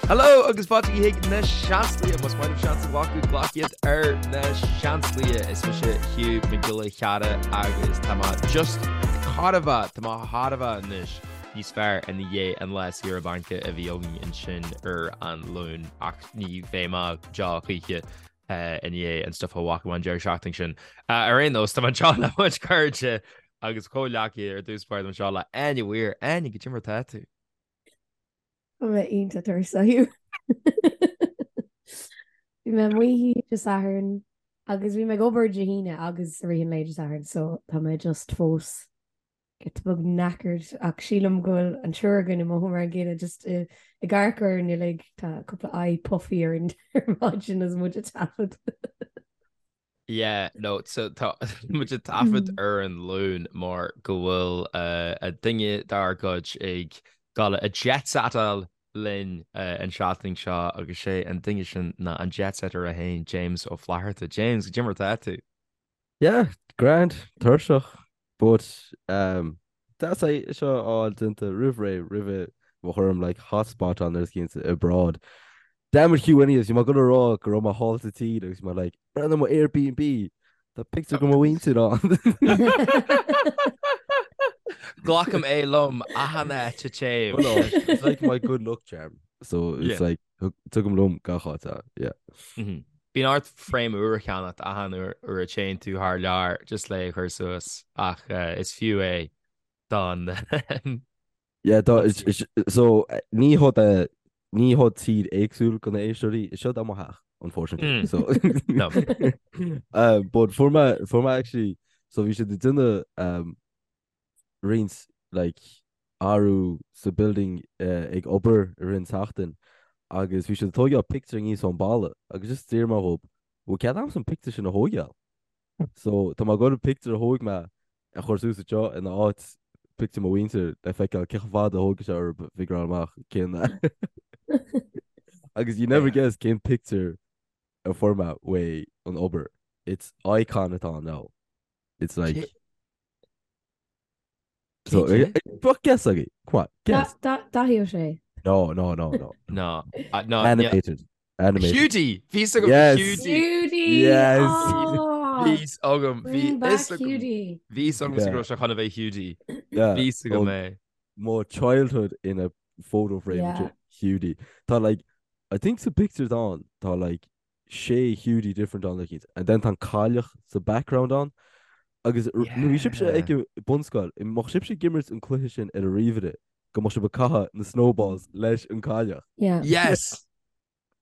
Hello agus fáilte chuig na Seansálaithe. Más maith libh seans a ghlacadh, glac iad ar na Seansálaithe. Is mise Hugh Mac Giolla Cheara agus tá mé just thar a bheith, tá mé thar a bheith anois níos fearr i ndiaidh an lá saoire bainc a bhí againn ansin ar an Luan ach ní bheidh mé go deo choíche i ndiaidh an stuif a bhfaca mé an deireadh seachtaine sin. Ar aon nós, tá mé anseo le mo chuid cairde agus comhghleacaithe ar dtús báire, tá mé anseo le Áine Weir. Áine, goidé mar atá tú? Tá mé iontach tuirseach. Bhí mé amuigh Dé Sathairn agus bhí mé ag obair Dé hAoine agus i rith an lae Dé Sathairn so tá mé just fós giota beag knackered ach sílim go bhfuil an triúr againn ag mothú mar an gcéanna just ag amharc orainn uilig tá cúpla aghaidh puffy orainn ar maidin agus muid ag taifead. Yeah, no, so tá muid ag taifead ar an Luan mar go bhfuil duine dár gcuid ag dul a jet-setáil linn an seachtain seo agus sé an duine sin ná an jet-setter é féin, James Ó Flatharta. James, goidé mar atá tú? Yeah, grand, tuirseach, but um, deas é seo a fháil déanta roimh ré, roimhe mo chur orm like hotspot on ar cinnte abroad. Damn it Hugh anyways, bhí mé ag dul a rá go raibh mé thall sa tír agus bhí mé like, breathnaigh mo Airbnb, tá pictiúr de mo mhuintir ann. Glacaim é liom achan áit a dtéim. Well, no, it's like my good luck charm. So it's Yeah. like tugaim liom gach áit é, yeah. Mhm. Bíonn ort frame úr a cheannacht achan uair a théann tú thar lear just le é a chur suas ach is fiú é don Yeah, tá, is, is, so, ní hod é, ní hod tír éagsúil do na éisteoirí, is seo é mo theach, unfortunately. Mm. So, No. uh, but fuair mé, fuair mé actually, so bhí siad ag déanamh, um, roinnt like athrú sa building ag obair i rith an tseachtain agus bhí siad ag tóigeáil pictiúr aníos ón balla agus just d'iarr mé dhób bhfuil cead a'msa an pictiúr sin a thóigeáil? So tá mé ag dul an pictiúr a thóig mé a chur suas anseo ina áit pictiúr mo mhuintir le feiceáil cé chomh fada a thógfaidh sé orthu figureáil amach cén agus you never guess cén pictiúr a fuair mé uaidh an obair. It's icon atá ann now. It's like So, Bheadh guess agaibh. Come on, guess. Dáithí Ó Sé. No, no, no, no. No, no. Animated. Animated. Hiúdaí! Bhí 's agam Yes. Hiúdaí! Hiúdaí! Yes. Oh! Bhí 's agam. Bhí Bring back fhios agam. Hiúdaí. Bhí 's agam Yeah. go raibh sé chun a bheith Hiúdaí. Yeah. Bhí 's agam Oh, é. Mo childhood in a photo frame Yeah. Hiúdaí. Tá like, I think sa pictures ann, tá like sé Hiúdaí different ann like and then tá an cailleach sa background ann agus nuair bhí sibhse ag bunscoil, mbeadh sibhse ag imirt an cluiche sin ar an ríomhaire go mbeadh sibh ag caitheamh na snowballs leis an cailleach. Yeah. Yes!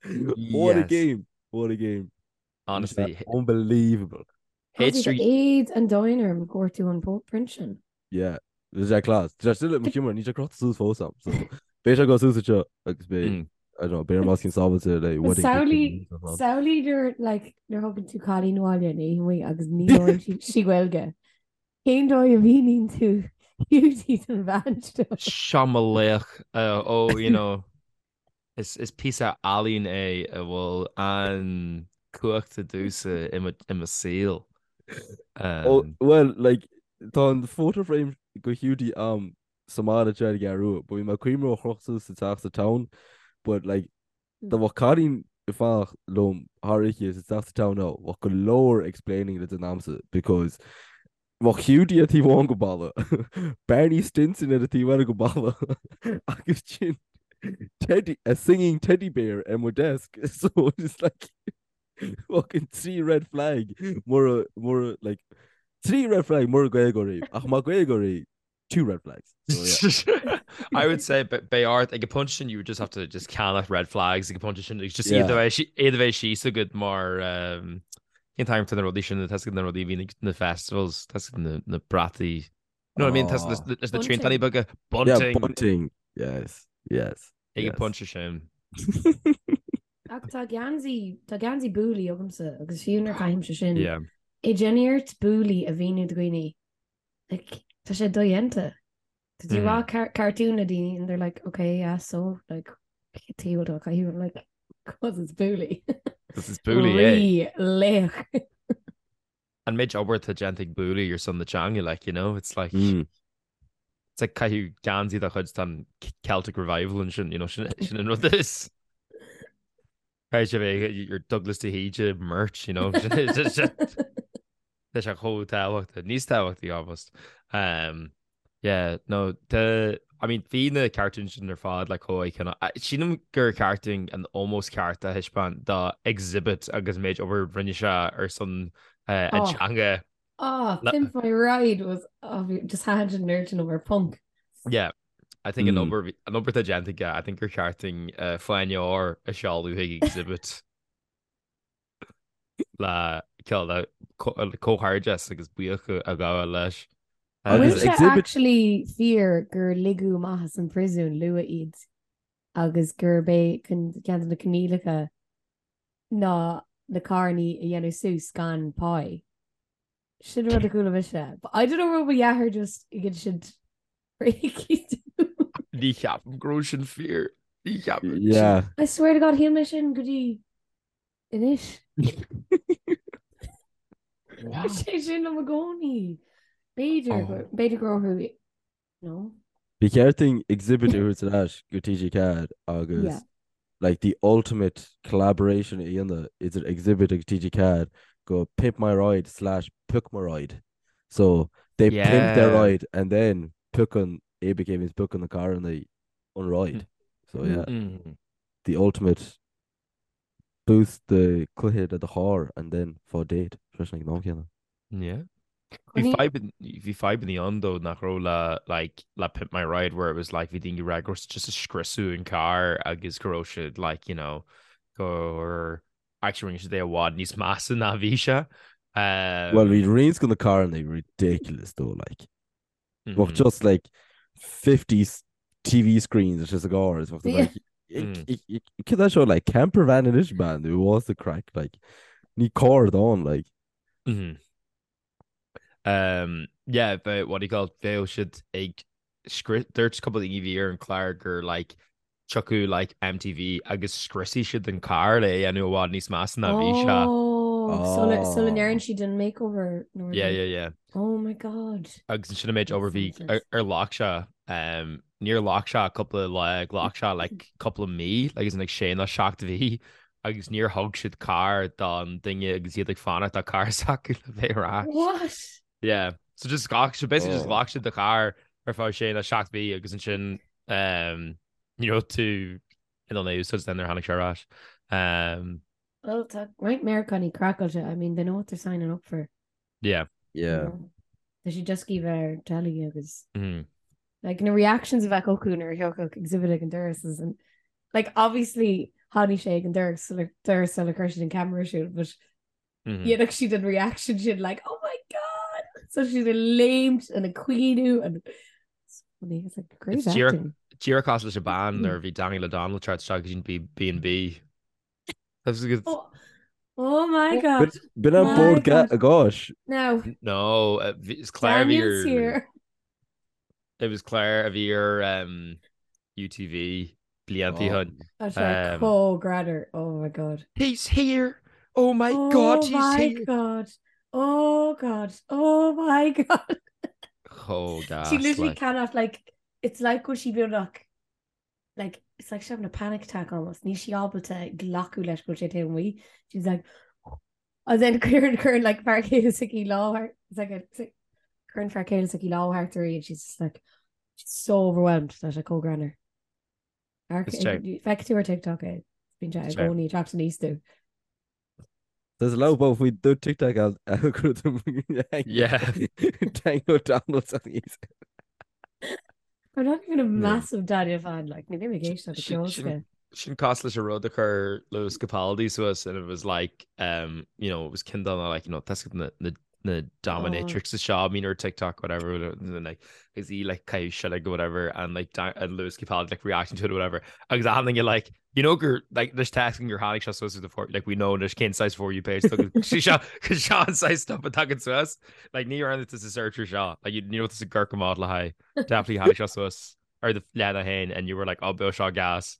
What a Yes. game! What a game. Honestly. Unbelievable. H3 Éad an domhain orm go bhfuair tú an print sin. Yeah. Bhí sé class. Tá sé still i mo sheomra, níl sé crochta suas fós a'm. So, beidh sé ag dul suas anseo agus beidh, Mm. I don't know, beidh orm os cionn sábháilte le wedding Samhlaigh picture and stuff. samhlaigh nuair like nuair thugann tú cailín abhaile in oíche amuigh agus ní labhrann sí sí Gaeilge. Cén dóigh a mhíníonn tú Hiúdaí don bhean seo? Seo mo laoch. Uh, oh, you know, is, is píosa ealaín é a bhfuil an cumhacht domhsa i mo, i mo saol. Oh, Um, well, like, tá an photo frame go Hiúdaí a'm sa mbaile anseo ar an gCeathrú Rua, but bhí mé ag cuimhneamh a chrochadh suas sa teach sa town, but like, dá mbeadh cailín ag fanacht liom thar oíche sa teach sa town now, bheadh go leor explaining le déanamh a'msa because bheadh Hiúdaí ar taobh amháin go balla, Barney Stinson ar an taobh eile go balla agus sin teddy, a singing teddy bear ar mo desk so it's like fucking trí red flag mura mura like trí red flag mura Gaeilgeoir í ach má Gaeilgeoir í two red flags. So, yeah. I would say but beidh ort ag an bpointe sin you would just have to just ceannach red flags ag an bpointe sin just iad a bheith iad a bheith síos agat mar um, cén t-ainm atá na rudaí sin tá na rudaí a bhíonn ag na festivals tá na, na brataí You know what I mean? Tá Oh. leis na triantáin beaga Yeah, bunting bunting. Yes, yes. ag an yes. bpointe sin. Ach tá geansaí tá geansaí Booley agamsa agus fiú nuair a chaithimse sin Yeah. é déanfaidh ort Booley a mhíniú do dhaoine Like, tá sé dodhéanta. Tá tú ag rá car cartoon le daoine and they're like, okay, yeah, so, like, cén tuige a bhfuil tú á chaitheamh? I'm like, cause it's Booley. Cause it's Booley, eh? Rí laoch. An méid obair atá déanta ag Booley ar son na teanga, like, you know, it's like, Mm. it's like caitheamh geansaí dá chuid tá an Celtic Revival ansin, you know, sin sin an rud is. Caithfidh sé bheith your Douglas de hÍde merch, you know. Tá sé chomh tábhachtach, níos tábhachtaí almost. Um, yeah, no, the, I mean, bhí na cartoons sin ar fad like chomh iconic. Sílim gur cheart dúinn an ómós ceart a thaispeáint do Xzibit agus an méid obair rinne sé ar son uh, an Oh. teanga. Oh, Le- Pimp My Ride was oh, just thaitin sin an oiread sin liom mar punk. Yeah. I think an Mm. obair an obair atá déanta aige, I think gur cheart dúinn uh, fáinne óir a sheoladh chuig Xzibit le cineál le comhghairdeas agus buíochas a ghabháil leis. Bhfuil Agus sé Xzibit actually fíor gur ligeadh amach as an príosún luath iad agus gurb é ceann de na coinníollacha ná na carrannaí a dhéanamh suas gan pá? Sin rud a chuala mise. But I don't know raibh mo dheartháir just ag insint Ní cheapaim go raibh sin fíor. Ní cheapaim. Yeah. I swear to God shíl mé sin go dtí anois. Sé sin liom i gcónaí. B'fhéidir Oh. b'fhéidir go raibh no. Ba cheart dúinn Xzibit a thabhairt ar ais go TG4 agus Yeah. like the ultimate collaboration a dhéanamh idir Xzibit agus TG4 go Pimp My Ride slash Pioc My Ride. So they pimp their Yeah. ride and then piocann ABK means piocann na carranna an ride. So yeah, Mm. the ultimate boost the cluiche le do charr and then faigh date freisin ag an am céanna. Yeah. Bhí Coinní- fadhb bhí fadhbanna ann though nach raibh le like le Pimp My Ride where it was like bhí daoine ag rá go raibh siad just ag scriosadh an carr agus go raibh siad like you know gur actually rinne siad é i bhfad níos measa ná bhí sé. Um, Well bhí roinnt de na carranna ridiculous though like. Bheadh mhm. just like 50 TV screens is just a gcarr is bheadh Yeah. like Cad é seo like camper van anois man it was the craic like ní carr atá ann like. Mhm. Um, yeah, but what do you call it? Bheadh siad ag scri- dúirt cúpla daoine a bhí ar an chlár gur like tiocfadh like MTV agus scriosfaidh siad an carr le é a dhéanamh i bhfad níos measa ná bhí sé. Oh, sula sula Oh. ndeireann siad an makeover nó Yeah, rud. yeah, yeah. Oh my God. Agus ansin an méid obair bhí That's ar ar ghlac sé um, níor ghlac sé cúpla lá, ghlac sé like cúpla mí, like as in like sé nó seacht mhí agus níor thug siad carr don duine agus iad ag fanacht do charr s'acu le bheith ar ais. What? Yeah. So just ghlac siad basically just Oh. ghlac siad do charr ar feadh sé nó seacht mhí agus ansin um, ní raibh tú in ann é a úsáid nuair a tháinig sé ar ais. Um, Well, tá roinnt Meiriceánaigh craiceáilte. I mean, they know what they're signing up for. yeah. you Yeah. know. Tá siad just ag bheith ar telly agus Mm. like na reactions a bheadh acu nuair a thiocfadh Xzibit ag an doras is an like obviously tháinig sé ag an doras sula doras sula chuir siad an camera ar siúl, but Mm -hmm. dhéanfadh siad an reaction sin like oh my god so siad ag léimt and ag caoineadh and it's funny it's like great It's díreach acting. díreach cosúil leis an bean nuair a bhí Daniel O'Donnell ag teacht isteach go dtí B&B. That's a good Oh, oh my god. B'in an My Bord God. Gáis. Now, No, uh, is Claire a bhí Daniel's ar here. It was Claire a bhí ar um, UTV blianta ó shin. Tá sé Um, chomh greannmhar. Oh my god. He's here. Oh my Oh God, he's my here. god. Oh god. Oh my god. Chomh She gas, literally like. cannot like it's like go sí beagnach like it's like she's having a panic attack almost. Níl sí ábalta glacadh leis go bhfuil sé taobh amuigh. She's like and then cuireann cuireann like fear céile s'aici lámh thart it's like a it's like cuireann fear céile s'aici lámh thart uirthi and she's just like she's so overwhelmed tá sé chomh greannmhar. Is sé. Feicfidh tú ar TikTok é. Bíonn sé i Is sé. gcónaí ag teacht aníos domh. There's a lot about we do TikTok algorithm. Yeah. Daniel O'Donnell's on the I'm not even a Yeah. massive Daniel fan like ní bhím ag éisteacht le Sin ceol sin s'aige. sin cosúil leis an rud a chuir Lewis Capaldi suas and it was like um you know it was ceann de na like you know that's na na na Oh. dominatrix seo I mean or TikTok whatever and then like is he like caitheamh seilg or whatever and like da and Lewis Capaldi like reacting to it or whatever agus achan duine like you know gur like there's texting gur tháinig seo suas the for like we know there's cén saghas for you page sí seo cos seo an saghas stuff a tagann suas like ní raibh tú sa search ar seo like you, you know it's a gurk model le haghaidh definitely tháinig seo suas ar do leathanach féin and you were like oh beidh seo gas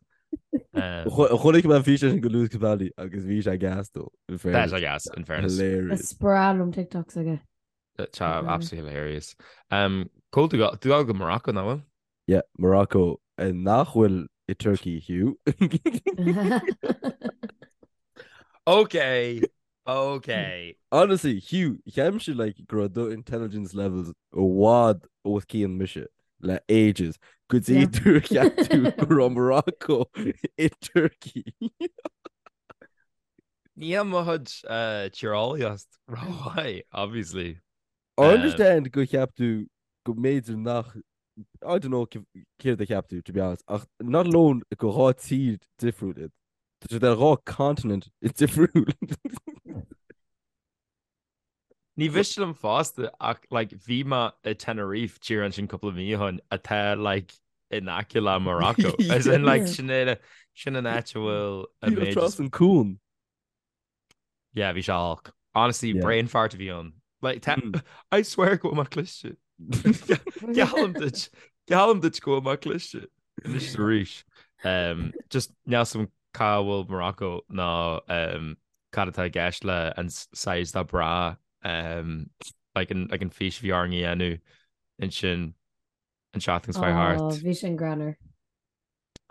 um, Chonaic mé an físeán sin go Lewis Capaldi agus bhí sé gas though, in Tá fairness. sé gas in fairness. Hilarious. Is breá liom TikToks aige. Tá absolutely hilarious. Um, Cól tú tú go Morocco nach bhfuil? Yeah, Morocco eh, nach bhfuil i Turkey Hugh. Ok, ok. Honestly, Hugh, cheapfainn like go raibh do intelligence levels i bhfad os cionn mise le ages go dtí gur cheap tú go raibh Morocco i Turkey. Níl mo chuid tíreolaíocht rómhaith, obviously. I understand go cheap tú go mb'fhéidir nach I don't know céard a cheap tú, to be honest, ach not alone go dhá tír difriúil iad. Tá siad ar dhá continent difriúil. Ní mhiste liom fosta ach like bhí mé i Tenerife tír ansin cúpla mí ó shin atá like in aice le Morocco. As in like sin é sin an áit a bhfuil an méid Trasna an cuan. Yeah, bhí sé olc. Honestly, yeah. brain fart a bhí ann. Like, mm. I swear go bhfuil mé cliste. Geallaim duit Geallaim duit go bhfuil mé cliste. Anois arís. Um, just níl a fhios agam cá bhfuil Morocco ná um, cad atá i gceist le an size dá bra um, like an, like an fís bhí orainn a dhéanamh ansin an seachtain seo thart. Oh, bhí sin greannmhar.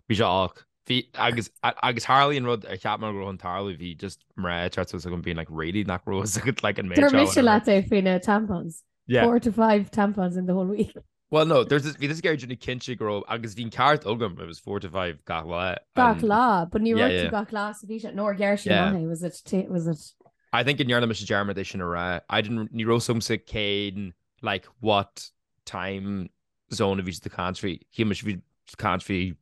Bhí sé olc. Bhí, agus, agus tharlaigh an rud ar cheap mé go raibh chun tarlú, bhí just mná ag teacht suas chugam being like really nach raibh fhios agat like an méid seo. Dúirt mise leat é faoi na tampons. Yeah. 4 to 5 tampons in the whole week. Well no, there's this, bhí tusa ag déanamh cinnte go raibh, agus bhí an ceart agam, it was 4 to 5 gach lá. Gach lá, but ní raibh tú gach lá sa bhí sé, nó ar ghearr sí amach é, was it, was it? I think go ndearna mise dearmad é sin a rá. I didn't, ní raibh fhios agamsa cén, like, what time zone a bhí siad ag caint faoi. Shíl mise bhí ag caint faoi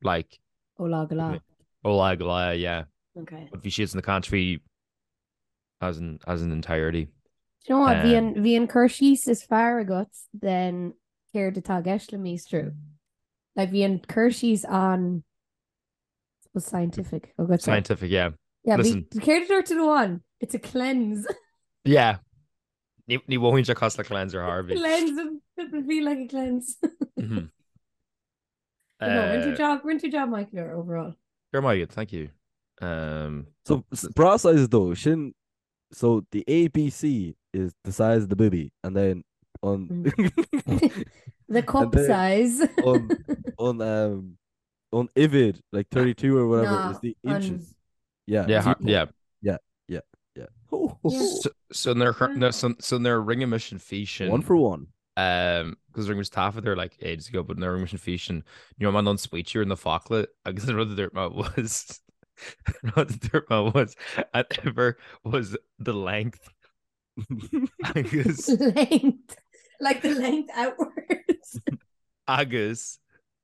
like Ó lá go lá. Ó lá go lá, yeah. Okay. But bhí siad ag caint faoi as an, as an entirety. Do you know what? Bhí an, bhí an cur síos is fearr agat den céard atá i gceist le míostrú. Like bhí an cur síos an was scientific agat. Scientific, yeah. Yeah, Listen. Céard a dúirt tú one? It's a cleanse. Yeah. Ní mhothaíonn sé cosúil le cleanse ar chor ar bith. Cleanse, it feel like a cleanse. Mm-hmm. No, rinne tú job, rinne tú job maith overall. Go raibh maith agat, thank you. Um, so bra size though, sin so the ABC is the size of the boobie and then on mm. the cup then size on on um on uimhir like 32 or whatever no, is the inches. Yeah. Yeah, yeah. Yeah, yeah, yeah. So, so nuair so, so nuair a rinne mise an físeán. One for one. Um, because rinne mise taifead air like ages ago, but nuair a rinne mise an físeán, ní raibh mé in ann smaoitiú ar na focla agus an rud a dúirt mé was rud a dúirt mé was an uimhir was the length. Agus length like the length outwards. Agus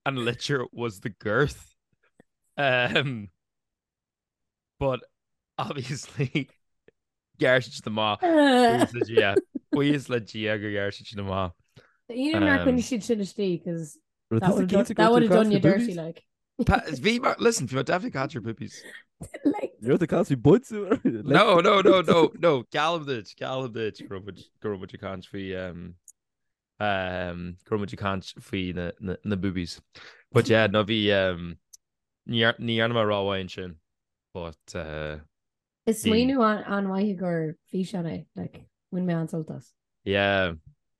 an litir was the girth. Um, But obviously ghearr siad sin amach. Buíochas le Dia. Buíochas le Dia gur ghearr siad sin amach. You know nár choinnigh siad sin istigh cos that would have done, that would have done you dirty like. Bhí mar listen, bhí mar definitely catch your poopies. Like You're the catch buds. No, no, no, no, no. Geallaim duit, geallaim duit go raibh muid go raibh muid ag caint faoi um, um, go raibh muid ag caint faoi na, na, na boobies. But yeah, no bhí um, Ní dhearna mé rómhaith ansin, but. Is smaoineamh an-mhaith gur físeán é, like, bhain mé an-sult as. Yeah.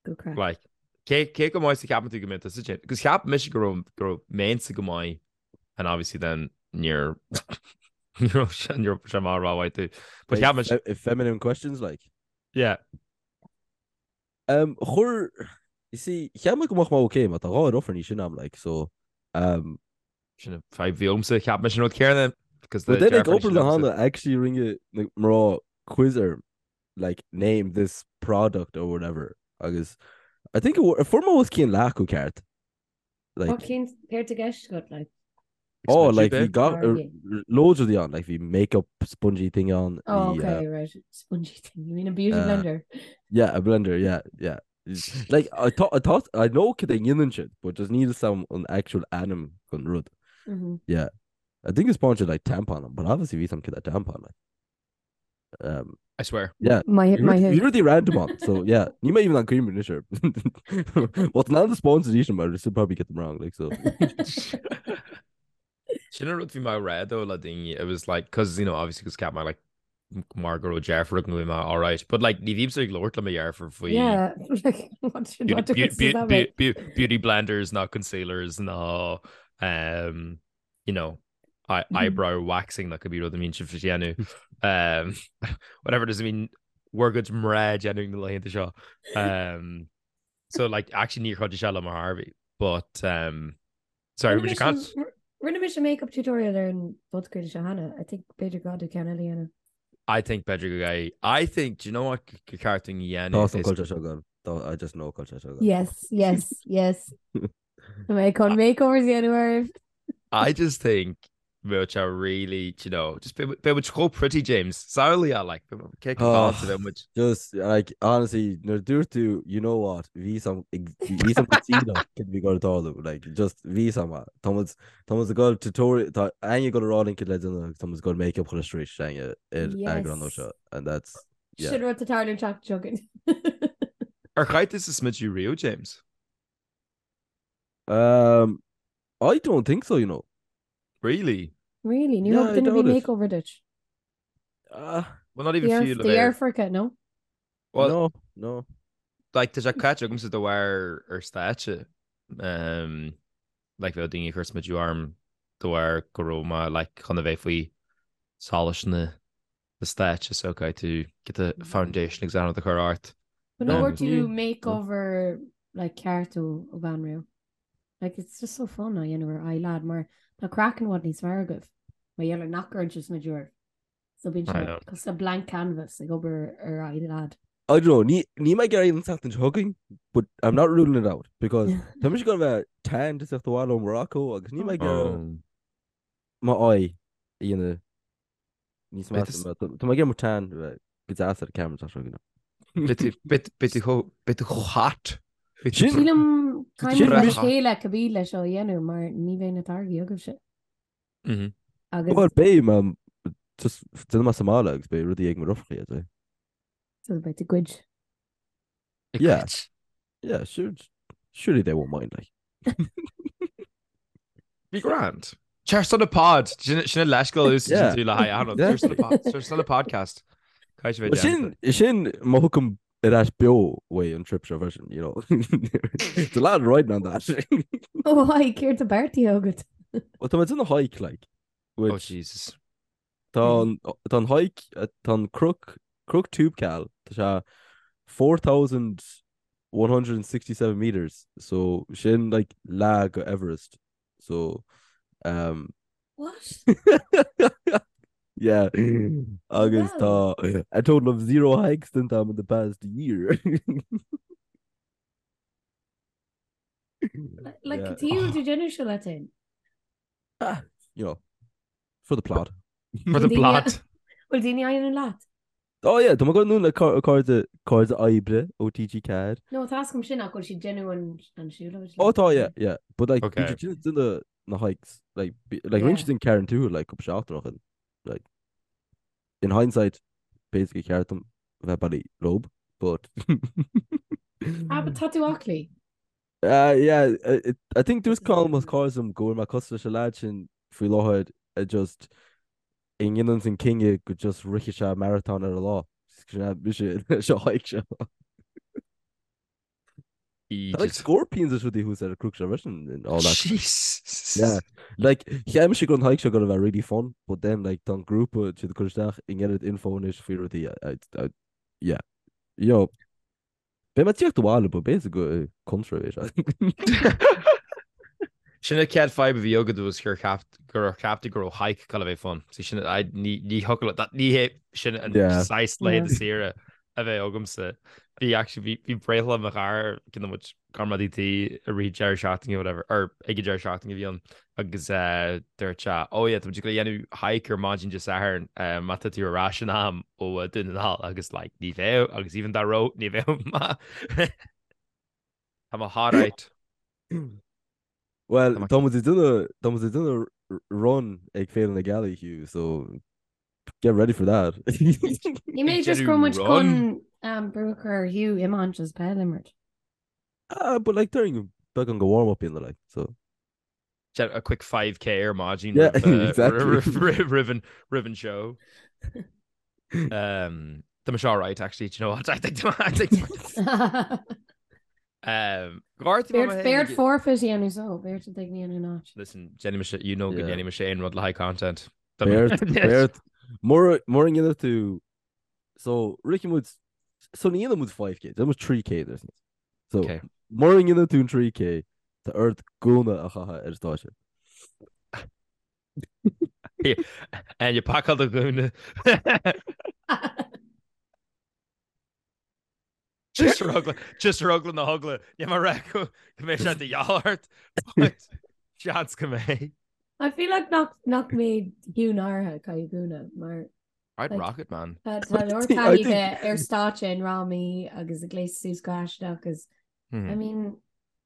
Good craic. Like, cé cé chomh maith is a cheapann tú go mbeidh tusa sin? Because cheap mise go raibh go raibh mise go maith and obviously then níor ní raibh sé ní raibh sé mar rómhaith tú. But cheap mise Feminine questions like. Yeah. Um, chuir, you see, cheap mé go mbeadh mé okay, mar tá dhá ruffer níos sine ná mé, like, so, um, Sin an fadhb bhí agamsa, cheap mise an rud céanna because But then ag obair le Hannah actually rinne na mná quiz orm like name this product or whatever agus I think fuair mé os cionn leath acu ceart. Like cén céard i gceist agat like? Oh like bhí gach loads rudaí ann like bhí makeup spongy thing ann. Oh okay right spongy thing you mean a beauty blender? Yeah a blender yeah yeah. Like, I thought, I thought, I know cad é ndéanann siad, but just níl 'fhios a'm an actual ainm don rud. Mm -hmm. Yeah. I think it's sponge like tampon, but obviously bhí 'fhios a'm cad é tampon like. Um, I swear. Yeah. My, my Bhí rudaí random ann, so yeah. Níl mé even an cuimhin anois air. Well, now the sponsors each but I still probably get them wrong, like so. Sin an rud bhí mé a rá though le daoine, it was like, cause you know, obviously cause cheap mé like mar go raibh deirfiúr agam go bhí mé alright, but like ní bhímse ag labhairt le mo dheirfiúr faoi Yeah, like, what should, what difference does that make? beauty blenders ná concealers ná um, you know. Eyebrow waxing nó cibé rud a mbíonn sibh ag déanamh. Um, whatever does it mean bhur gcuid mná ag déanamh na laethanta seo. Um, so like actually níor chuidigh sé liom ar chor ar bith, but um, sorry, Rinne would you can't mise- Rinne mise make-up tutorial ar an bpodchraoladh seo cheana. I think b'fhéidir go gcaithfidh ceann eile a dhéanamh. I think b'fhéidir go gcaithfidh. I think, do you know what gur ceart dúinn a dhéanamh Tá an is- culture seo agam. Tá I just know culture seo agam. Yes, yes, yes. Tá mé chun makeovers a dhéanamh oraibh. I just think bheadh sé really, you know, just beidh muid chomh pretty, James. Samhlaigh é, like, cé go Oh. fáilte bheadh muid. Just like honestly nuair a dúirt tú you know what bhí sam bhí sam go cad bhí ag tarlú like just bhí sam tá muid tá muid ag dul tutorial tá Áine ag dul a rá linn cad le déanamh agus tá muid ag dul make-up chun street Áine ar Yes. eagrán nua seo and that's yeah. Sin rud atá ag tarlú an tseachtain seo chugainn. Ar chaith tusa smideadh riamh, James? Um, I don't think so, you know. Really? Really? Ní Yeah, thug I duine ar doubt bith it. makeover duit? Uh, Well, not even fiú le Do bheith. dheirfiúracha, no? Well, no, no. like, tá sé caite agamsa de bharr ar stáitse. Um, like, bheadh daoine ag cur smideadh orm de bharr go raibh mé, like, chun a bheith faoi solas na na stáitse so caithfidh tú get the foundation agus anad a chur ort. But no Um, bhfuair tú makeover like ceart ó ó bhean riamh. Like it's just so fun á dhéanamh ar aghaidh lad mar tá craiceann i bhfad níos fearr agaibh. Mar gheall ar nach gcuireann sibh smideadh oraibh. So bíonn I sé know. cosúil le blank canvas ag obair ar aghaidh lad. I don't know, ní, níl mé ag iarraidh an tseachtain seo chugainn, but I'm not ruling it out, because tá mise ag dul a bheith tanned ag teacht abhaile ó Morocco agus níl mé ag iarraidh Oh. m'aghaidh a dhéanamh Níos Beidh measa, tá mé ag iarraidh mo tan a bheith go deas ar an camera tá seo Beidh tú chomh beidh tú chomh hot. Beidh tú Sin- Sílim Sin caithfidh muid mis- le chéile cibé leis seo a dhéanamh mar ní bheidh na táirgí agaibhse. Mhm. Agus Well beidh mé just déanfaidh mé sa mbaile agus beidh rudaí ag mo dheirfiúracha iad. so beidh tú ag goid. Ag Yeah. goid. Yeah, sure, surely they won't mind like. Bhí grand. Cheers to the pod. Sin sin leithscéal a úsáideann tú le haghaidh achan rud. Cheers to the pod. Cheers to the podcast. Caithfidh sé bheith Sin déanta. sin má thiocfaim ar ais beo uaidh an trip seo freisin, you know. It's a lot riding on that. Ó haigh, céard tá beartaithe agat? Well, tá mé ag déanamh hike like, Oh which Jesus. tá an tá an hike tá an Cnoc Cnoc Toubkal tá sé 4167 meters so sin like leath go Everest so um What? yeah agus Wow. tá a total of zero hikes déanta agam in the past year. Like Yeah. cad chuige tú déanamh seo leat féin? Ah, you know, for the plot. For the Daoine- plot. Bhfuil daoine á dhéanamh leat? Oh yeah, tá mé ag dul anonn le cairde cairde oibre ó TG4. No, tá a fhios agam sin ach bhfuil siad ag déanamh an an siúlóid Oh leat? tá yeah, yeah. But like Okay. bhí siad ag déanamh na hikes like bí- like rinne Yeah. siad an Carrauntoohil like cúpla seachtain ó shin. Like in hindsight basically ceart dom bheith bailí leo but Ah, but tá tú aclaí. Uh, yeah, uh, I think dúirt Colm as cairde liom go bhfuil mé cosúil leis an lad sin faoi láthair a just a ndéanann an cinneadh go just rithfidh sé marathon ar an lá. Sin é mise leis an hike seo. Tá like scorpions is rudaí thuas ar an cnoc seo freisin and all that. Jesus. Yeah. Like, cheap mise go raibh an hike seo gonna bheith really fun, but then like tá an grúpa siad ag cur isteach an oiread info anois faoi rudaí I, I, yeah. Yo, Beidh mé ag tíocht abhaile, but b'fhéidir go contra é seo. Sin an chéad fadhb a bhí agat was gur cheap gur cheap tú go raibh hike ag dul a bheith fun. See sin I ní ní thiocfadh le ní hé sin an Yeah. saghas laethanta saoire a bheidh agamsa. Bhí actually bhí bhí breithlá mo chara cionn muid comrádaí tí i rith deireadh seachtaine whatever or ag an deireadh seachtaine a bhí ann agus eh, dúirt sé oh yeah tá muid ag dul a dhéanamh hike ar maidin Dé Sathairn eh, má tá tú ar ais in am ó eh, Dún na nGall agus like ní bheadh agus even dá raibh ní bheadh ma Tá mé alright. Well, Tá mé- tá muid ag déanamh tá muid ag déanamh run ag Féile na Gealaí, Hugh, so get ready for that. Ní mé Ag just go déanamh muid run? chun um, brú a chur ar Hugh iomáint is peil a imirt. Ah, but like during beagán go warm up in the like, so. A quick 5k ar maidin Yeah, roimh, uh, exactly. roimh roimh an roimh an show. Um, Tá mé seo right actually, do you know what? I think I think Beart forfeit a dhéanamh so, beart a dtig in áit. Listen, déanfaidh mise, you know go ndéanfaidh mise aon rud le haghaidh content. Beart, beart, mura ndéanfaidh tú, so, rithfidh muid, so ní dhéanfaidh muid 5k, déanfaidh muid 3k ar sin. So, mura ndéanfaidh tú an 3k, tá ort gúna a chaitheamh ar an stáitse. And you pacáil do ghúna. Just ar eagla, just ar eagla na heagla. Níl mé ag rá go mbeidh sé de dhíobháil ort, but seans go mbeidh. I feel like nach nach mbeidh Hugh náirithe ag caitheamh gúna mar I'd like, rock it, man. tá tá leor I think- taithí aige ar stáitse in fhrámaí agus ag gléasadh suas go haisteach agus I mean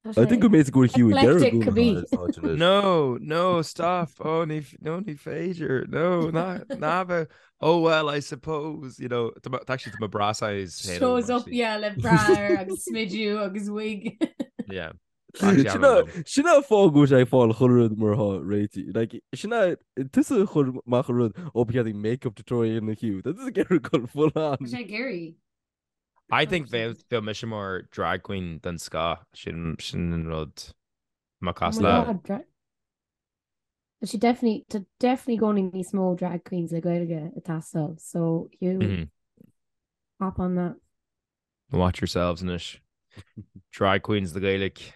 tá I think sé go mbeidh go Hugh ag iarraidh eclectic gúna a cibé. chaitheamh ar an stáitse anois. No, no, stop. Oh, ní, no, ní féidir. No, ná, ná bheith. Oh well, I suppose, you know, tá actually tá mo bra size féin agam, Shows up actually. yeah le bra air agus smidiú agus wig. Yeah. Actually, Sin I don't know. sin an fáth go bhfuil sé ag fáil chuile rud mar atá réitithe. Like, sin é tusa a chuir amach an rud ó ba cheart make-up tutorial a dhéanamh Hugh. Tá tusa ag iarraidh dul full on. Tá sé ag iarraidh. I think bheadh bheadh mise mar drag queen den scoth. Sin sin an rud. Má Oh cás my le. God, dra- Tá sé definitely tá definitely i gcónaí níos mó drag queens le Gaeilge ag teastáil so Hugh Mhm. hop on that. Watch yourselves anois. Drag queens le Gaeilge.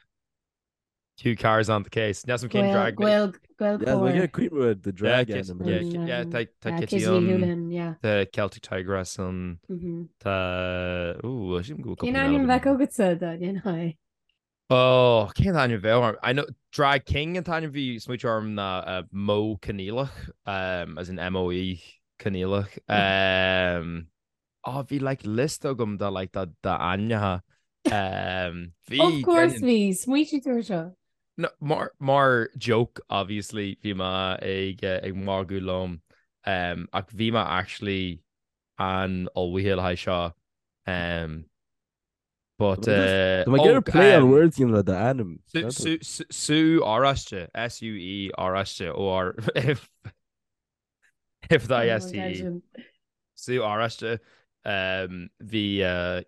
Hugh Carr's on the case. Níl 'fhios a'm cén drag Gael Gael Yeah, we Gaelchóir. get cuimhne the Yeah, drag Kit- ainm yeah, anois. Ki- yeah, tá tá Yeah, Kitty Kitty ann, Houlihan, yeah. tá Celtic Tigress ann, Mhm. tá ooh, sílim go bhfuil Cén cúpla ainm eile bheadh agam. agatsa dá ndéanfá é? Oh, cén ainm a bheadh orm? I know Drag King an t-ainm a bhí smaointe orm ná uh, Mo Coinníollach, um, as in M-O-E Coinníollach. Um, oh, bhí like list agam de like de d'ainmneacha. Um, bhí Of course déanann- bhí, smaointigh tú ar seo. No, mar, mar joke, obviously, bhí mé ag, eh, ag magadh liom, um, ach bhí mé actually an-ullmhaithe le haghaidh seo. Um, But Tá mé ag iarraidh play on words a dhéanamh le d'ainm. Sú Oráiste, S-U-E Oráiste, O-R F I S T E. Sú Oráiste. Bhí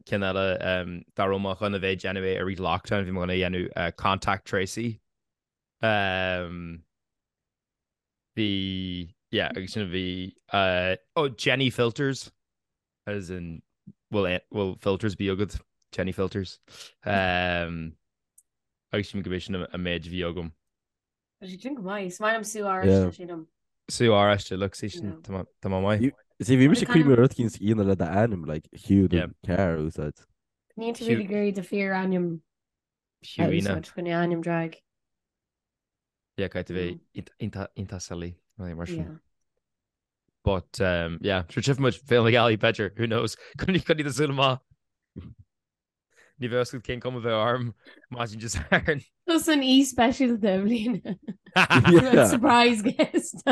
ceann eile dá raibh mé chun a bheith ag déanamh é i rith lockdown, bhí mé chun a dhéanamh Contact Tracy. Bhí, yeah, agus sin a bhí, oh, Jenny Filters. As in, will, will filters be agat? Jenny Filters. Um, agus sílim gurb é sin an méid a bhí agam. Tá sé sin go maith. Is maith liom Sú Oráiste, sílim. Sú Oráiste, look, see sin, tá mé maith. See, bhí mise ag cuimhneamh ar rud eicínt a dhéanamh le d'ainm, like, Hugh the Carr a úsáid. Níl tú really ag iarraidh do fíor-ainm a úsáid chun ainm drag. Yeah, caithfidh tú bheith iontach silly, mar sin. Yeah. But um, yeah, sure tchífidh muid Féile na Gealaí b'fhéidir, who knows? Coinnigh do shúil amach. Ní bheidh fhios agat cén cuma a bheidh orm maidin Dé Sathairn. Tusa an aoi speisialta i mbliana. Yeah. Surprise guest.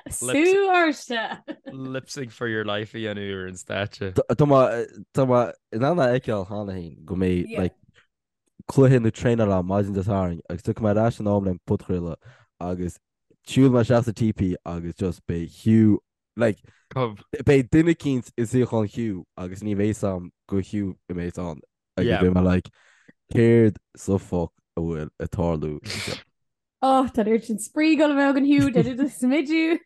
Sú Oráiste. Lip sync for your life a dhéanamh ar an stáitse. Tá mé tá mé in ann a fheiceáil cheana féin go mbeidh Yeah. like, cluiche nó traenáil ann maidin Dé Sathairn agus tiocfaidh mé ar ais in am le an podchraoladh agus Siúlfaidh mé isteach sa TP agus just beidh Hugh like Cub. beidh duine eicínt i suíochán Hugh agus ní bheidh fhios a'm gur Hugh a bheas ann agus Yeah. beidh mé like céard sa fuck a bhfuil ag tarlú anseo? Oh, tá an oiread sin spraoi ag dul a bheith againn Hugh, tá tú do smidiú.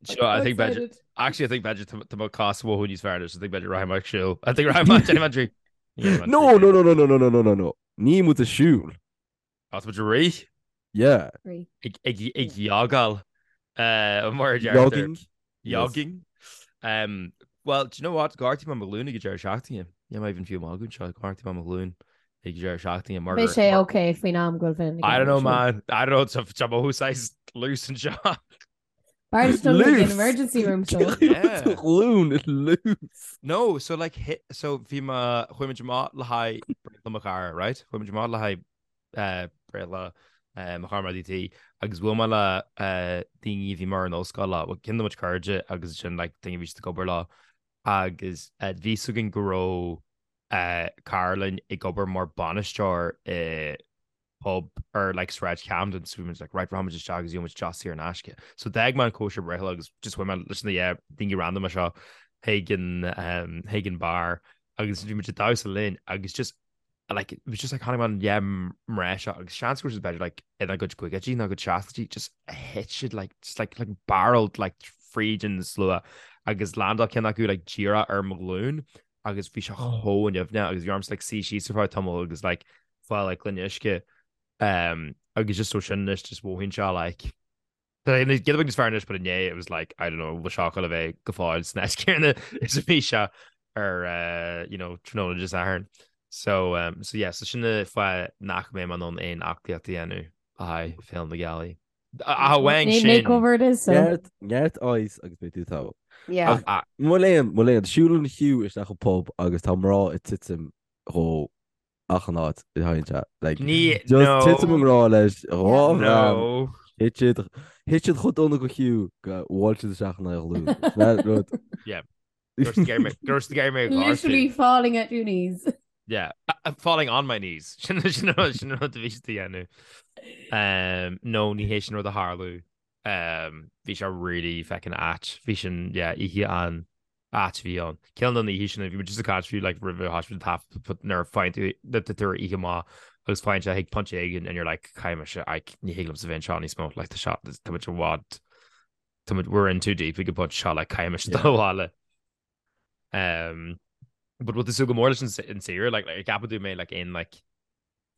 Sure, I think b'fhéidir actually I think b'fhéidir tá tá mo cás mhóthú níos fearr anois, I think b'fhéidir rachaidh mé ag siúl. I think rachaidh mé déanfaidh mé an trí. Déanfaidh mé an No, 3K. no, no, no, no, no, no, no, no, no. Níl muid ag siúl. Tá muid ag rith. Yeah. Ag ag jogáil mar a deirtear. Jogging. Jogging. Um, well, do you know what? Gortaigh mé mo ghlúin ag an deireadh seachtaine. Níl mé even fiú ag magadh anseo. Gortaigh mé mo ghlúin ag an deireadh seachtaine. Mar Beidh sé okay faoin am go bhfuil I don't know, man. I don't know. Tá mo saghas loose anseo. B'fhearr duit dul chuig an emergency room so. Yeah. Do ghlúin loose. No, so like hit, so bhí mé, chuaigh muid amach le haghaidh breithlá mo chara, right? Chuaigh muid amach le haghaidh eh, breithlá eh, mo chara mar DT agus bhuail mé le eh, daoine a bhí mar an ollscoil leo, well, ceann de mo chuid cairde agus sin like daoine a bhí siad ag obair leo agus eh, bhí fhios againn go raibh eh, cara linn ag obair mar bainisteoir i pub ar like Sráid Camden so bhí muid like right rachaimid isteach agus gheobhaimid deoch saor in aisce. So d'fhág mé an cóisir breithlá agus just chuaigh mé leis na yeah, daoine random seo chuig an um, chuig an bar agus bhí muid ag damhsa linn agus just Like, it was just like chonaic mé an yeah mná seo agus seans go raibh siad b'fhéidir like ina gcuid caogaidí nó gcuid seascaidí just thit siad like just like like barreled like fríd an slua agus landáil ceann acu like díreach ar mo ghlúin agus bhí sé chomh nimhneach agus bhí ormsa like suí síos ar feadh tamaill agus like fáil like gloine uisce um agus just ó sin anois just mhothaíonn sé like Giota beag níos fearr anois but inné it was like I don't know bhfuil seo ag dul a bheith go fóill san áit céanna is a bhí sé ar uh, you know tráthnóna Dé Sathairn. So um, so yeah, so sin an fáth nach mbeidh mé in ann aon aclaíocht a dhéanamh le haghaidh Féile na Gealaí. Ach amháin sin. Makeover it is so. Neart neart ice agus beidh tú togha. Yeah. Ach ah, mo léan mo léan siúlann Hugh isteach an pub agus tá mná ag titim dhó achan áit a théann sé. Like, Ní, just no. titim i ngrá leis, dhá bhean, No. thit siad, thit siad chomh dona go Hugh go bhuail siad isteach ina ghlúin. Sin é rud. Yeah. Gur gur gur mé Literally falling at your knees. Yeah, uh, falling on my knees. Sin sin rud sin rud a bhí siad a dhéanamh. Um, no, ní hé sin rud a tharla. Um, bhí sé really feckin ait. Bhí sin, yeah, oíche an ait a bhí ann. Ceann de na oíche sin, bhí muid just ag caint faoi like roimh a thoisigh muid an taifead nuair a faigheann tú nuair atá tú ar oíche maith agus faigheann sé chuig pointe éigin and you're like caithfidh mise like ní thig liomsa bheith anseo níos mó like tá seo tá muid i bhfad tá muid we're in too deep ag an bpointe seo like caithfidh mise dul abhaile. Um, but bhfuil tú ag súil go mór leis an an saoire like like ceapann tú go mbeidh like aon like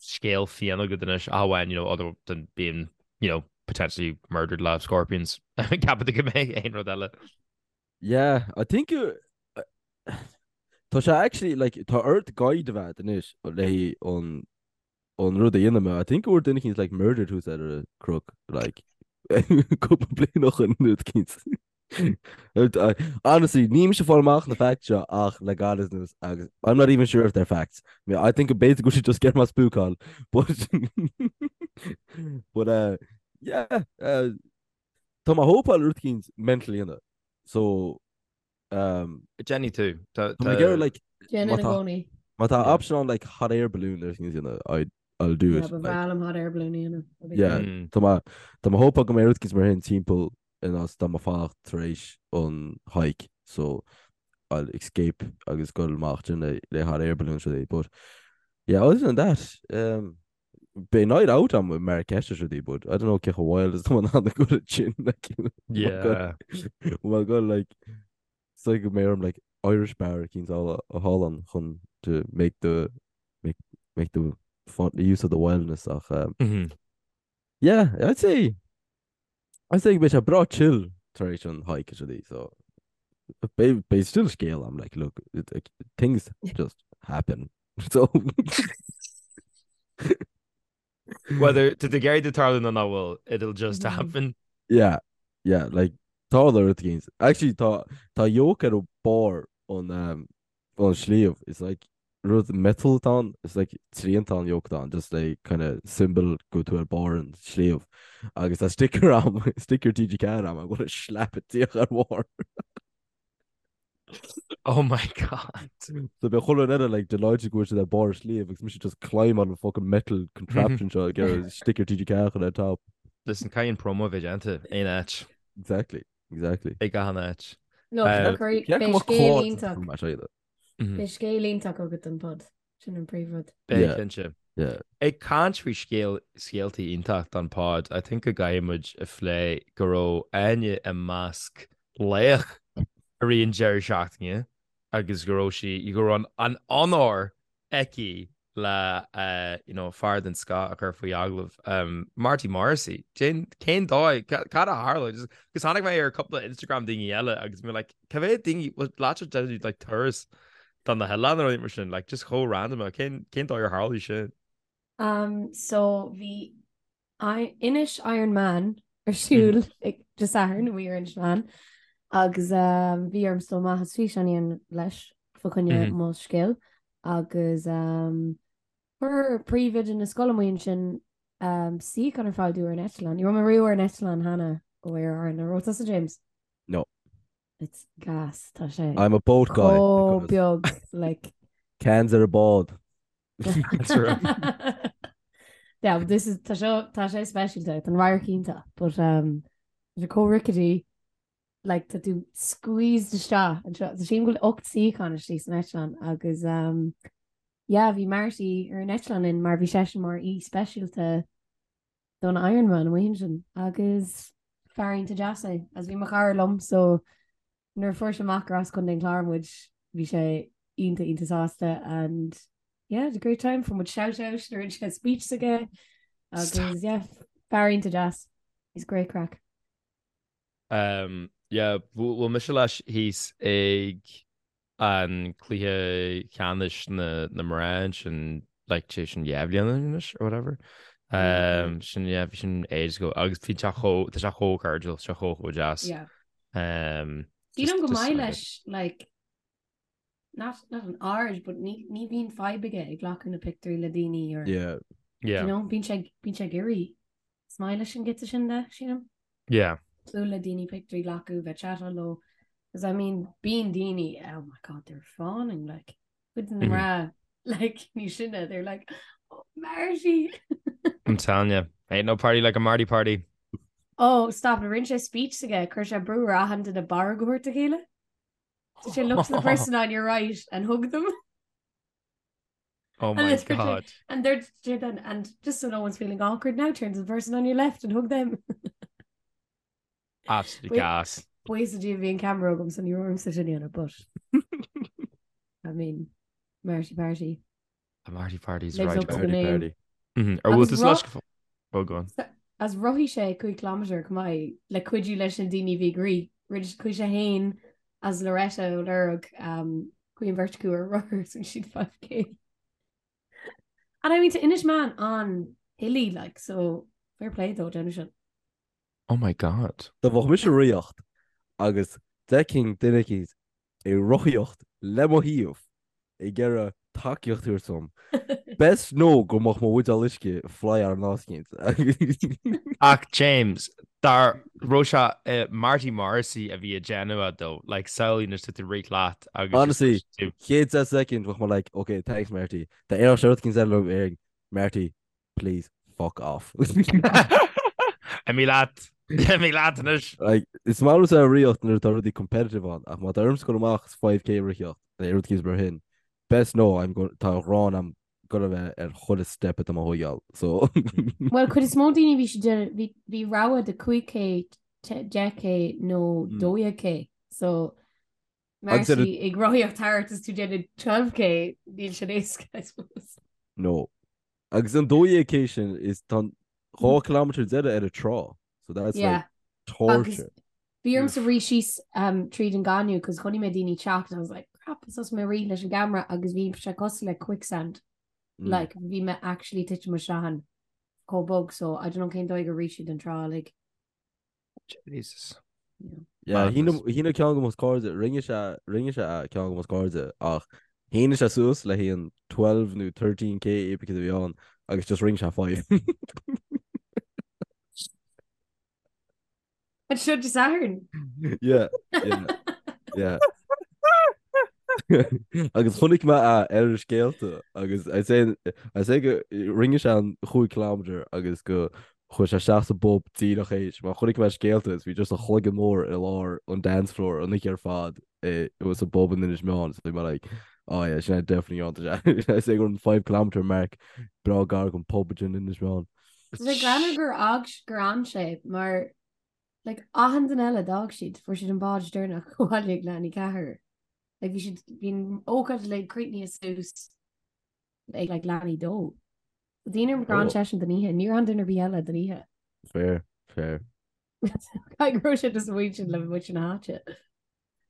scéal fiáin agat anois ach amháin you know other than being you know potentially murdered le scorpions ceapann tú go mbeidh aon rud eile. Yeah, I think you Tá sé actually like tá ort guide a bheith anois le an an rud a dhéanamh mé. I think go bhfuair duine eicínt like murdered thuas ar an chnoc like cúpla bliain ó shin rud eicínt. Honestly, níl mise ag fáil amach na facts seo ach le gairid anuas agus I'm not even sure if they're facts. I mean, I think b'fhéidir go bhfuil siad just ag iarraidh mé a spúcáil but but uh, yeah uh, Tá mé hopáil rud eicínt mental a dhéanamh so um, Déanfaidh tú. Tá mé ag iarraidh like Déanann má i tá gcónaí. má tá Yeah. option ann like hot air balloon nó rud eicínt a dhéanamh I I'll do Yeah, it ba like bhreá liom hot air balloon a dhéanamh. That'd be yeah cool. Mm. tá mé tá mé hopáil go mbeidh rud eicínt mar sin timpeall in áit dá mbeidh fanacht tar éis an hike so I'll escape agus dul amach sin le le hot air balloon rudaí but yeah other than that um, Beidh night out agam i Marrakesh is rudaí but I don't know cé chomh wild is atá mé in ann a ghoil ansin like Yeah. Well go like it's like go mbeidh orm like Irish bar eicínt a fháil ann chun to make the make make the fun the use of the wildness ach um, Mhm. yeah I'd say I'd say go mbeidh sé breá chill tar éis an hike is rudaí so beidh beidh still scéal agam like look it, like, things just happen so Whether tá tú ag iarraidh tarlú nó nach bhfuil, it'll just Mhm. happen. yeah yeah like tarla rud eicínt actually tá tá yoke ar barr an um, an sliabh it's like rud metal atá ann it's like triantán yoke atá ann just like kind of symbol go bhfuil tú ar barr an sliabh agus tá sticker agam sticker TG4 agam I'm gonna slap it díreach ar bharr. Oh my god. So beidh chuile dhuine eile like delighted go bhfuil siad ar barr an sliabh agus mise just climb on the fucking metal contraption seo ag iarraidh sticker TG4 a chur ar top. Listen, caithfidh an promo a bheith déanta aon áit. Exactly, exactly. Ag achan áit. Look, Uh, beidh Cé go mbeadh scéal clár iontach. mar seo iad. Beidh scéal iontach agat don pod. Sin an príomhrud. Beidh Yeah. cinnte. Yeah. Ag caint faoi scéal scéaltaí iontach don pod, I think go gcaithfidh muid a phlé go raibh Áine i measc laoch i rith an deireadh seachtaine agus go raibh sí, go raibh an onóir aici le you know fear den scoth a chur faoi agallamh, Marty Morrissey. Cén cén dóigh, cad a tharla? Agus tháinig mé ar cúpla Instagram daoine eile agus mé like cá mhéad daoine bhfuil leat ag déanamh like turas do na hoileáin nó rudaí mar sin like just chomh random cén cén dóigh ar tharla sin? Um so bhí Inis Iron Man ar siúl ag Dé Sathairn amuigh ar Inis Meáin agus bhí orm dul amach is físeán a dhéanamh leis fá choinne mo scéal agus chuir príomhoide na scoile amuigh ansin suíochán ar fáil dúinn ar an eitleán. Ní raibh mé riamh ar an eitleán cheana ó Aer Arann. An raibh tusa James? No. It's gas, tá sé. I'm a boat guy. Chomh beag like. Cans ar a bád. Yeah, but this is tá seo tá sé speisialta tá an radharc iontach, but um, tá sé chomh rickety like tá tú squeezed isteach anseo. Tá sílim go bhfuil 8 suíochán istigh san eitleán agus um, yeah, bhí Marty ar an eitleán linn mar bhí seisean mar aoi speisialta don Ironman amuigh ansin agus fear iontach deas é agus bhí mo chara liom so nuair a fuair sé amach gur as Contae an Chláir muid bhí sé iontach iontach sásta and yeah, had a great time fuair muid shout out nuair a rinne sé speech s'aige agus yeah, fear iontach deas. He's great craic. Um, yeah, bhuail mise leis thíos ag an cluiche ceannais na na mná ansin like sé sin 2 bhliain anois or whatever. Um, sin yeah, bhí sin ages ago agus bhí sé chomh tá sé chomh cairdiúil, sé chomh chomh deas. Yeah. Um, Sílim go just maith like leis like not not an aird but ní ní bhíonn fadhb aige ag glacadh na pictiúirí le daoine or Yeah. Yeah. you know, bíonn sé bíonn sé ag iarraidh. Is maith leis an giota sin de, sílim. Yeah. Bualadh le daoine pictiúirí a ghlacadh, bheith chatáil leo. Because I mean, bíonn daoine, oh my god, they're fawning, like, cuid de na mná, like, níos sine, they're like, oh, Marty! I'm telling you, ain't no party like a Marty party. Oh, stop, rinne sé speech s'aige, chuir sé brú ar achan duine barróg a thabhairt dá chéile. So sé look to the person on your right and hug them. Oh my god. And they're then and just so no one's feeling awkward now, turn to the person on your left and hug them. Absolutely gas. Buíochas le Dia bhí an camera agam so ní raibh ormsa sin a dhéanamh, but I mean, Marty Party. The Marty Party's Lives right. up to the name. Party. Mhm. Ar bhfuil Agus tú leis Oh, go on. As rothaigh sé 5 kilometre chomh maith le cuidiú leis na daoine a bhí ag rith. Rinne chuaigh sé féin as Loretta ó Lorg um, chuaigh an bheirt acu ar rothar is rinne siad 5k. And I mean tá Inis Meáin an-hilly like so fair play dó déanamh sin. Oh my god. Dá mbeadh mise ag rothaíocht agus d'fheicfinn duine eicínt ag rothaíocht le mo thaobh ag iarraidh tacaíocht a thabhairt dom, best know go mbeadh mo bhuidéal uisce fly ar an áit eicínt. Ach James, dá raibh sé Marty Morrissey a bhí ag déanamh é though, like samhlaigh anois tá tú ag rith leat agus Honestly, chéad 10 soicind bheadh mé like, ok, thanks Marty. Dá ndéarfadh sé rud eicínt eile liom déarfainn, Marty, please fuck off. Imigh leat. Imigh leat anois. Like, is maith liomsa ag rothaíocht nuair atá rudaí competitive ann, ach má tá ormsa dul amach is 5k a rothaíocht, nó rud eicínt mar sin, best know I'm going, tá a ghráin a'm gonna bheith ar chuile step atá mé a thógáil, so. Bhuel, cuid is mó daoine bhí siad déanamh, bhí, bhí rogha de 5k, 10k nó 12k, so Agus ar a- Marty ag rothaíocht thart is tú déanamh 12k, níl sin éasca, I suppose. No. Agus an 12k sin is tá an 2 kilometre deireadh ar an trá. So that's Yeah. like torture. Bhí ormsa rith síos um, tríd an gaineamh cos chonaic mé daoine teacht and I was like, crap, is thosaigh mé rith leis an gcamera agus bhí sé cosúil le quicksand. Like, bhí mé actually titim isteach ann chomh bog, so I don't know cén dóigh gur rith siad an trá, like. Jesus. Yeah, shín ceann de mo chairde, rinne sé, rinne sé a ceann de mo chairde ach shín sé suas le haghaidh an 12 nó 13k epic a bhí ann agus just rinne sé 5. An seo Dé Sathairn. Yeah, yeah, yeah. Agus chonaic mé é ar na scéalta agus I say, I say go rinne sé an 5 kilometre agus go Chuaigh sé isteach sa bpub díreach théis mar chonaic mé scéalta is bhí just a chloigeann mór i lár an dance floor an oíche ar fad i sa bpub in Inis Meáin so bhí mé like oh yeah sin é definitely an sé is é gur an 5 kilometre mark breá gar don pub in Inis Meáin. Tá sé greannmhar gur fhág gur fhan sé mar like achan duine eile d'fhág siad fuair siad an bád deireanach abhaile ag leath i ndiaidh a ceathair. Like bhí siad bhí an ócáid like críochnaithe suas ag like leath i ndiaidh a dó. Daoine gur fhan seisean don oíche, níor fhan duine ar bith eile don oíche. Fair, fair. Caithfidh go raibh sé just amuigh ansin le muintir na háite.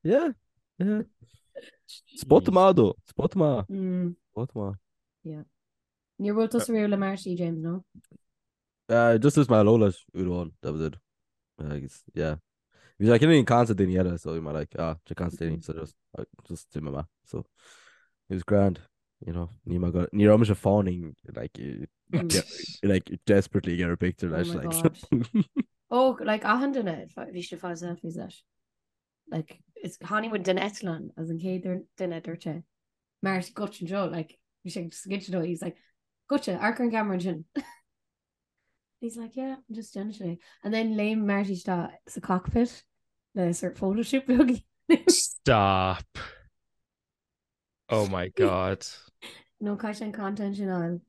Yeah, yeah. Spot maith dó, spot maith. Mm. Spot maith. Yeah. Níor bhuail tusa riamh le Marty, James, no? Uh, just dúirt mé hello leis uair amháin, that was it. Agus, yeah. Bhí sé cineál ag caint le daoine eile, so bhí mé like, ah, sé caint le daoine, so just, uh, just d'imigh mé. So, it was grand, you know, ní mé go, ní raibh mise fawning, like, eh, de- like, desperately get a picture Oh leis, my like. God. Oh, like achan duine, bhí sé fá selfies leis. Like, is tháinig muid den eitleán as an chéad duine a dúirt sé. Marty goitse anseo, like, bhí sé just goitse dó, he's like, goitse, amharc ar an gceamara ansin. He's like, yeah, I'm just déanamh sé. And then léim Marty isteach sa cockpit le sort photoshoot beag. Stop. Oh my God. No caithfidh sé an content sin a fháil.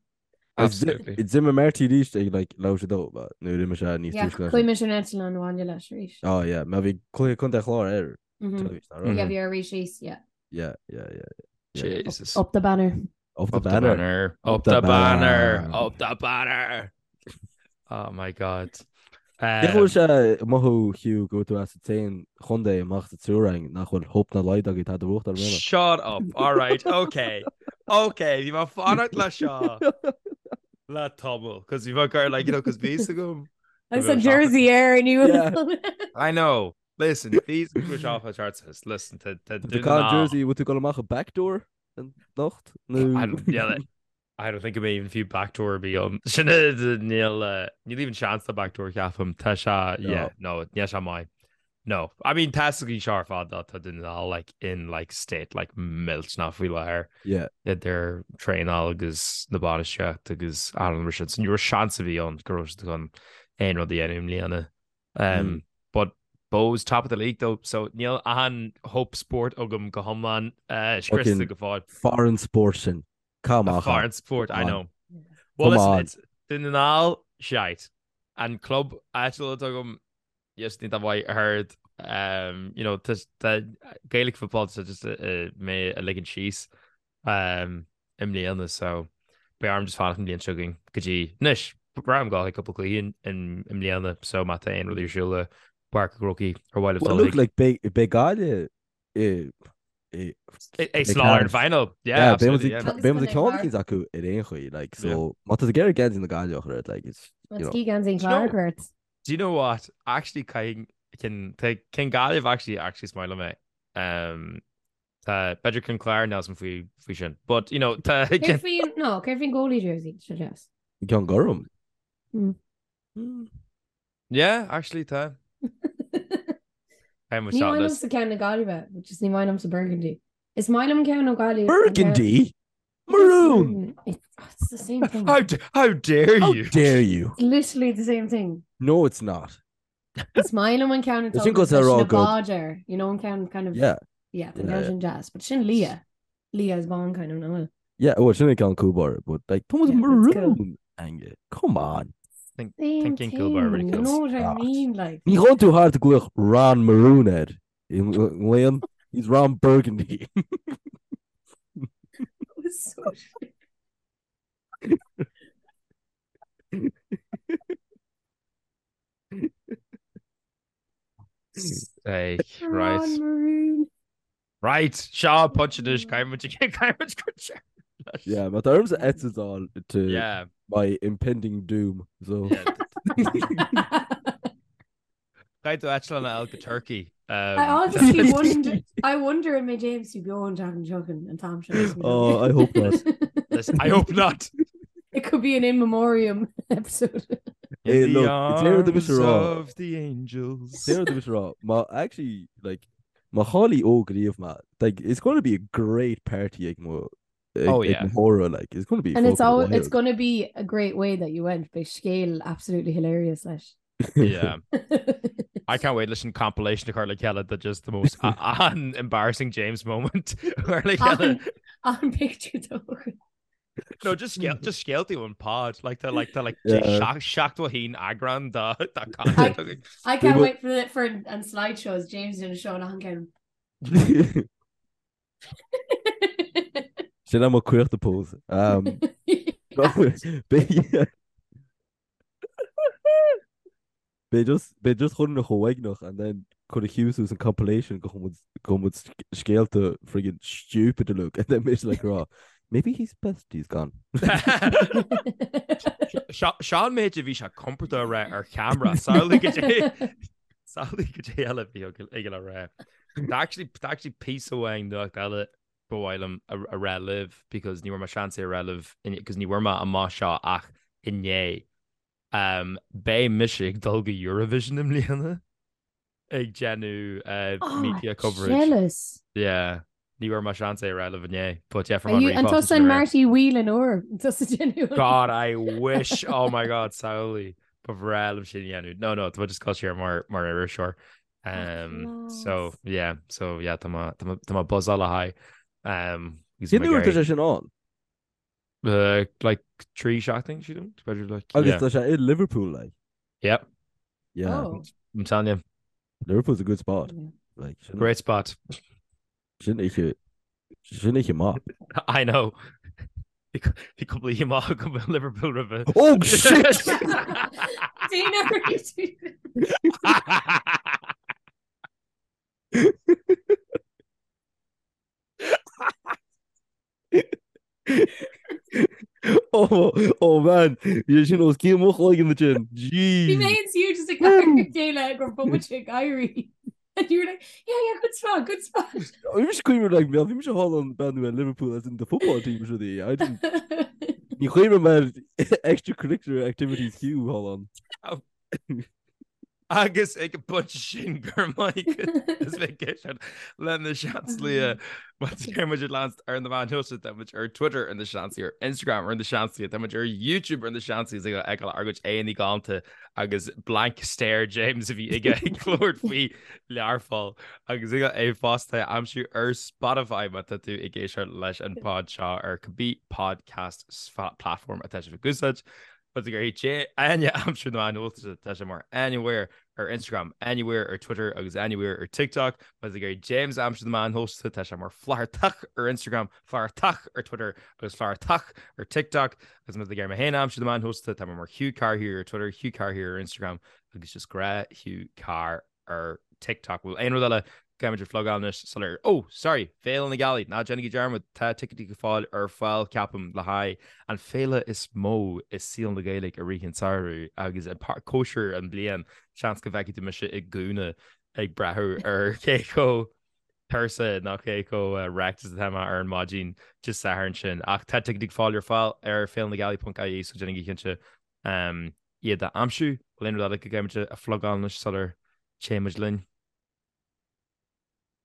Absolutely. D'imigh Marty arís ag like leathuair tar éis a dó, but nuair a d'imigh sé níos Yeah, túisce leis. chuaigh mise ar an eitleán abhaile leis arís. Oh yeah, mar bhí cluiche Contae an Chláir ar Mhm. teilifís, nach raibh? Yeah, bhí ar arís síos, yeah. Yeah, yeah, yeah, yeah. Jesus. Up the banner. Up the Up the banner. banner. Up Up the the banner. banner. Up the banner. Oh my God. Cén chaoi a bhfuil sé ag mothú Hugh go bhfuil tú as an t-aon chontae amach sa triúr againn nach bhfuil hope ná laghad agaibh tada a bhuachtáil i mbliana. Shut up. All right. Okay. Okay. Bhí mé ag fanacht le seo le tamall. Cos bhí mé ag cur like, you know, cos bhí a fhios agam. Agus an jersey air and you. Yeah. I know. Listen, bhí a fhios agam go raibh seo chart. Listen, tá Tá tú ag jersey, bhfuil tú ag dul amach an backdoor anocht? Nó I don't, yeah, I don't think go mbeidh even fiú backdoor ar bith ann. Sin níl níl even seans de backdoor ceapaim. Tá sé yeah, no, níl sé maith. No. I mean tá a fhios againn seo ar fad tá Dún na nGall like in like state like millteanach faoi láthair. Yeah. Idir traenáil agus na bainistíocht agus an mar sin. So ní raibh seans ar bith ann go raibh siad chun aon rud a dhéanamh i mbliana. Um, But Bohs top of the league though, so níl an hope sport agam go hiomlán uh, scriosta go fóill. Foreign sport sin. Come on. Foreign sport, I know. Well, Come listen, on. it's Dún na nGall shite. An club áitiúil atá agam yes, ní mhaith heard um, you know, tá Gaelic football so just uh, mé a ligean síos um, i mbliana so beidh orm just fanacht an bhliain seo chugainn go dtí anois braithim go bhfuil cúpla cluiche i mbliana so má tá aon rud ar siúl i bPáirc an Chrócaigh ar mhaith libh Well, dul look, chuig. like, beidh beidh Gaillimh i i Ag sna ar an final. Yeah, Yeah, absolutely, yeah. Agus beidh muid ag Contae ceann Chlár. eicínt acu ar aon chaoi, like, Yeah. so má tá tú ag iarraidh geansaí na Gaillimhe a chur ort, like, it's, you Let's know. ski geansaí an Do you know- Chláir ort. Do you know what? Actually, caithfidh cinn tá cinn Gaillimh actually actually is maith liom é. Um, Tá b'fhéidir ceann Clár níl a fhios agam faoi faoi sin. But you know tá Céard faoin no, céard faoin goalie jersey seo deas. Ceann gorm. Mm. Mm. Yeah, actually tá. Ní maith liomsa ceann na Gaillimhe, which is ní maith liomsa burgundy. Is maith liom ceann ó Gaillimh. Burgundy? Maroon! It's, oh, it's the same thing. How, how dare How you? dare you? It's literally the same thing. No, it's not. Is maith liom an ceann Is sin go sa rá go- báid air, you know an ceann kind of Yeah. yeah, the Yeah, ceann sin deas, but sin liath. Liath is bán kind of nó. Yeah, well, sin an ceann cúl báire, but like, Thomas Yeah, but it's cool. Maroon, Ange. Come on. Same Thinking thing, cúl báire really you cool. know what I Ah. mean like. Ní ghabhann tú thart ag glaoch Ron Maroon air. Leon, he's Ron Burgundy. It was so shit. Hey, right. Ron Maroon. Right, Seo punch anois caithfidh caithfidh muid Yeah, má tá ormsa eitilt a fháil to Yeah. my impending doom. So Yeah. Caithfidh tú eitleán a fháil go Turkey. Um, I honestly wonder I wonder an mbeidh James beo an tseachtain seo chugainn an t-am seo. Oh, I hope not. Listen, I hope not. It could be an in memoriam episode. Hey, In look, the déarfaidh arms mise rá. of the angels. Déarfaidh mise rá, má actually like má chailleann Óg riamh ma, like it's going to be a great party ag mo ag, Oh, ag yeah. mo thórramh, like it's going to be And it's fucking all it's wild. gonna be a great way that you went. Beidh scéal absolutely hilarious leis. Yeah. I can't wait leis an compilation a chur le chéile de just the most an embarrassing James moment chur le chéile. An an picture though. No, just scéal just scéaltaí ón pod like tá like tá like Yeah. 71 eagrán de de content againn. I can't will- wait for the for an slideshows James in a show an ceann. Sin am cuiochta pose. Um, Beidh Beidh just beidh just chun na chomhaigneach and then chun a Hughes an compilation go chun go muid scéalta friggin stupid to look and then mise like rá maybe he's best he's gone. Sean méid a bhí sé compordach a rá ar cheamara samhlaigh goidé samhlaigh goidé eile bhí ag le rá. Tá actually tá actually píosa amháin nuacht eile ba mhaith liom a a rá libh because ní bhfuair mé seans é a rá libh because ní bhfuair mé amach seo ach inné. Um, beidh mise ag dul go Eurovision i mbliana ag déanamh uh, Oh, media coverage. jealous. Yeah. Ní bhfuair mé seans é a rá libh inné, but yeah, Are you an tusa an Marty Whelan úr tusa déanamh. God, I wish. Oh my God, samhlaigh. Ba bhreá liom sin a dhéanamh. No, no, tá mé just ag dul siar mar mar iriseoir. Um, so class. yeah, so yeah, tá mé tá mé tá mé buzzáil le haghaidh. Um, agus Cén mé uair ag tá iarraidh- sé sin ann? Uh, like 3 seachtain sílim, b'fhéidir like. Agus tá sé i Liverpool like. Yep. Yeah. Oh. I'm telling you. Liverpool's a good spot. Yeah. Like, sin, Great spot. Sin oíche sin oíche mhaith. I know. Bhí cúpla oíche mhaith agam i Liverpool roimhe. Oh shit! Dana Oh, oh man, bhí sin os cionn mo chloigeann ansin. Bhí mé Jeez. and you just ag amharc ar a chéile go raibh muid ag éirí. And you were like, yeah, yeah, good spot, good spot. Bhí mise cuimhneamh like, bhí mise thall an breathnú ar Liverpool as in the football team is rudaí. I didn't Ní chuimhním ar extracurricular activities Hugh thall ann. Agus ag an bpointe sin go raibh maith agat as bheith ag éisteacht le Na Seansálaithe. Má tá muid ag leanacht ar na meáin shóisialta, tá muid ar Twitter ar Na Seansálaithe, ar Instagram ar Na Seansálaithe, tá muid ar YouTube ar Na Seansálaithe is ag feiceáil ár gcuid aghaidheanna galánta agus blank stare James a bhí aige ag labhairt faoi Learpholl agus ag é fosta a aimsiú ar Spotify má tá tú ag éisteacht leis an pod seo ar cibé podcast platform atá sibh ag úsáid. Má tá tú ag iarraidh Áine a aimsiú ar na meáin shóisialta, tá sé mar Áine Weir ar Instagram, Áine Weir ar Twitter agus Áine Weir ar TikTok. Má tá tú ag iarraidh James a aimsiú ar na meáin shóisialta, tá sé mar Flathartach ar Instagram, Flathartach ar Twitter agus Flathartach ar TikTok. Agus má tá tú ag iarraidh mé féin a aimsiú ar na meáin shóisialta, tá mé mar Hugh Carr here ar Twitter, Hugh Carr here ar Instagram agus just gnáth Hugh Carr ar TikTok. Bhfuil aon rud eile go gcaithfimid a phlugáil anois sular Oh, sorry, Féile na Gealaí, ná déanaigí dearmad, tá ticéidí le fáil ar fáil, ceapaim, le haghaidh an féile is mó i saol na Gaeilge i rith an tsamhraidh agus an cóisir an bliain, seans go bhfeicfidh tú mise i gúna ag breathnú ar cé chomh tuirseach nó cé chomh wrecked is atá mé ar an maidin Dé Sathairn sin. Ach tá ticéidí le fáil ar fáil ar féilenagealaí.ie so déanaigí cinnte iad a aimsiú. Bhfuil aon rud eile go gcaithfimid a phlugáil anois sular téann muid linn?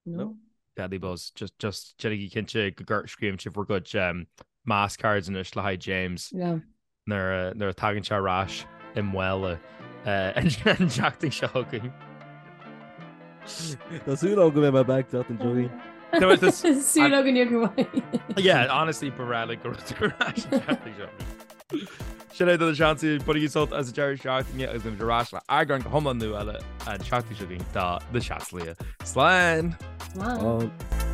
No. Deadly Buzz. Just, just déanaigí cinnte go gcur scríobhann sibh bhur gcuid um, mass cards anois le haghaidh James Yeah. nuair a, nuair a tagann sé ar ais i mbaile uh, an tseachtain seo chugainn. Tá súil agam go mbeidh mé back an tseachtain seo chugainn. Súil againn go mbeidh. Yeah, honestly, ba bhreá linn go raibh tú ar ais an tseachtain seo. Sin é do Na Seansálaithe, bainigí sult as an deireadh seachtaine agus beimid ar ais le eagrán go hiomlán nua eile an tseachtain seo chugainn de Na Seansálaithe. Slán! Slán! Slán.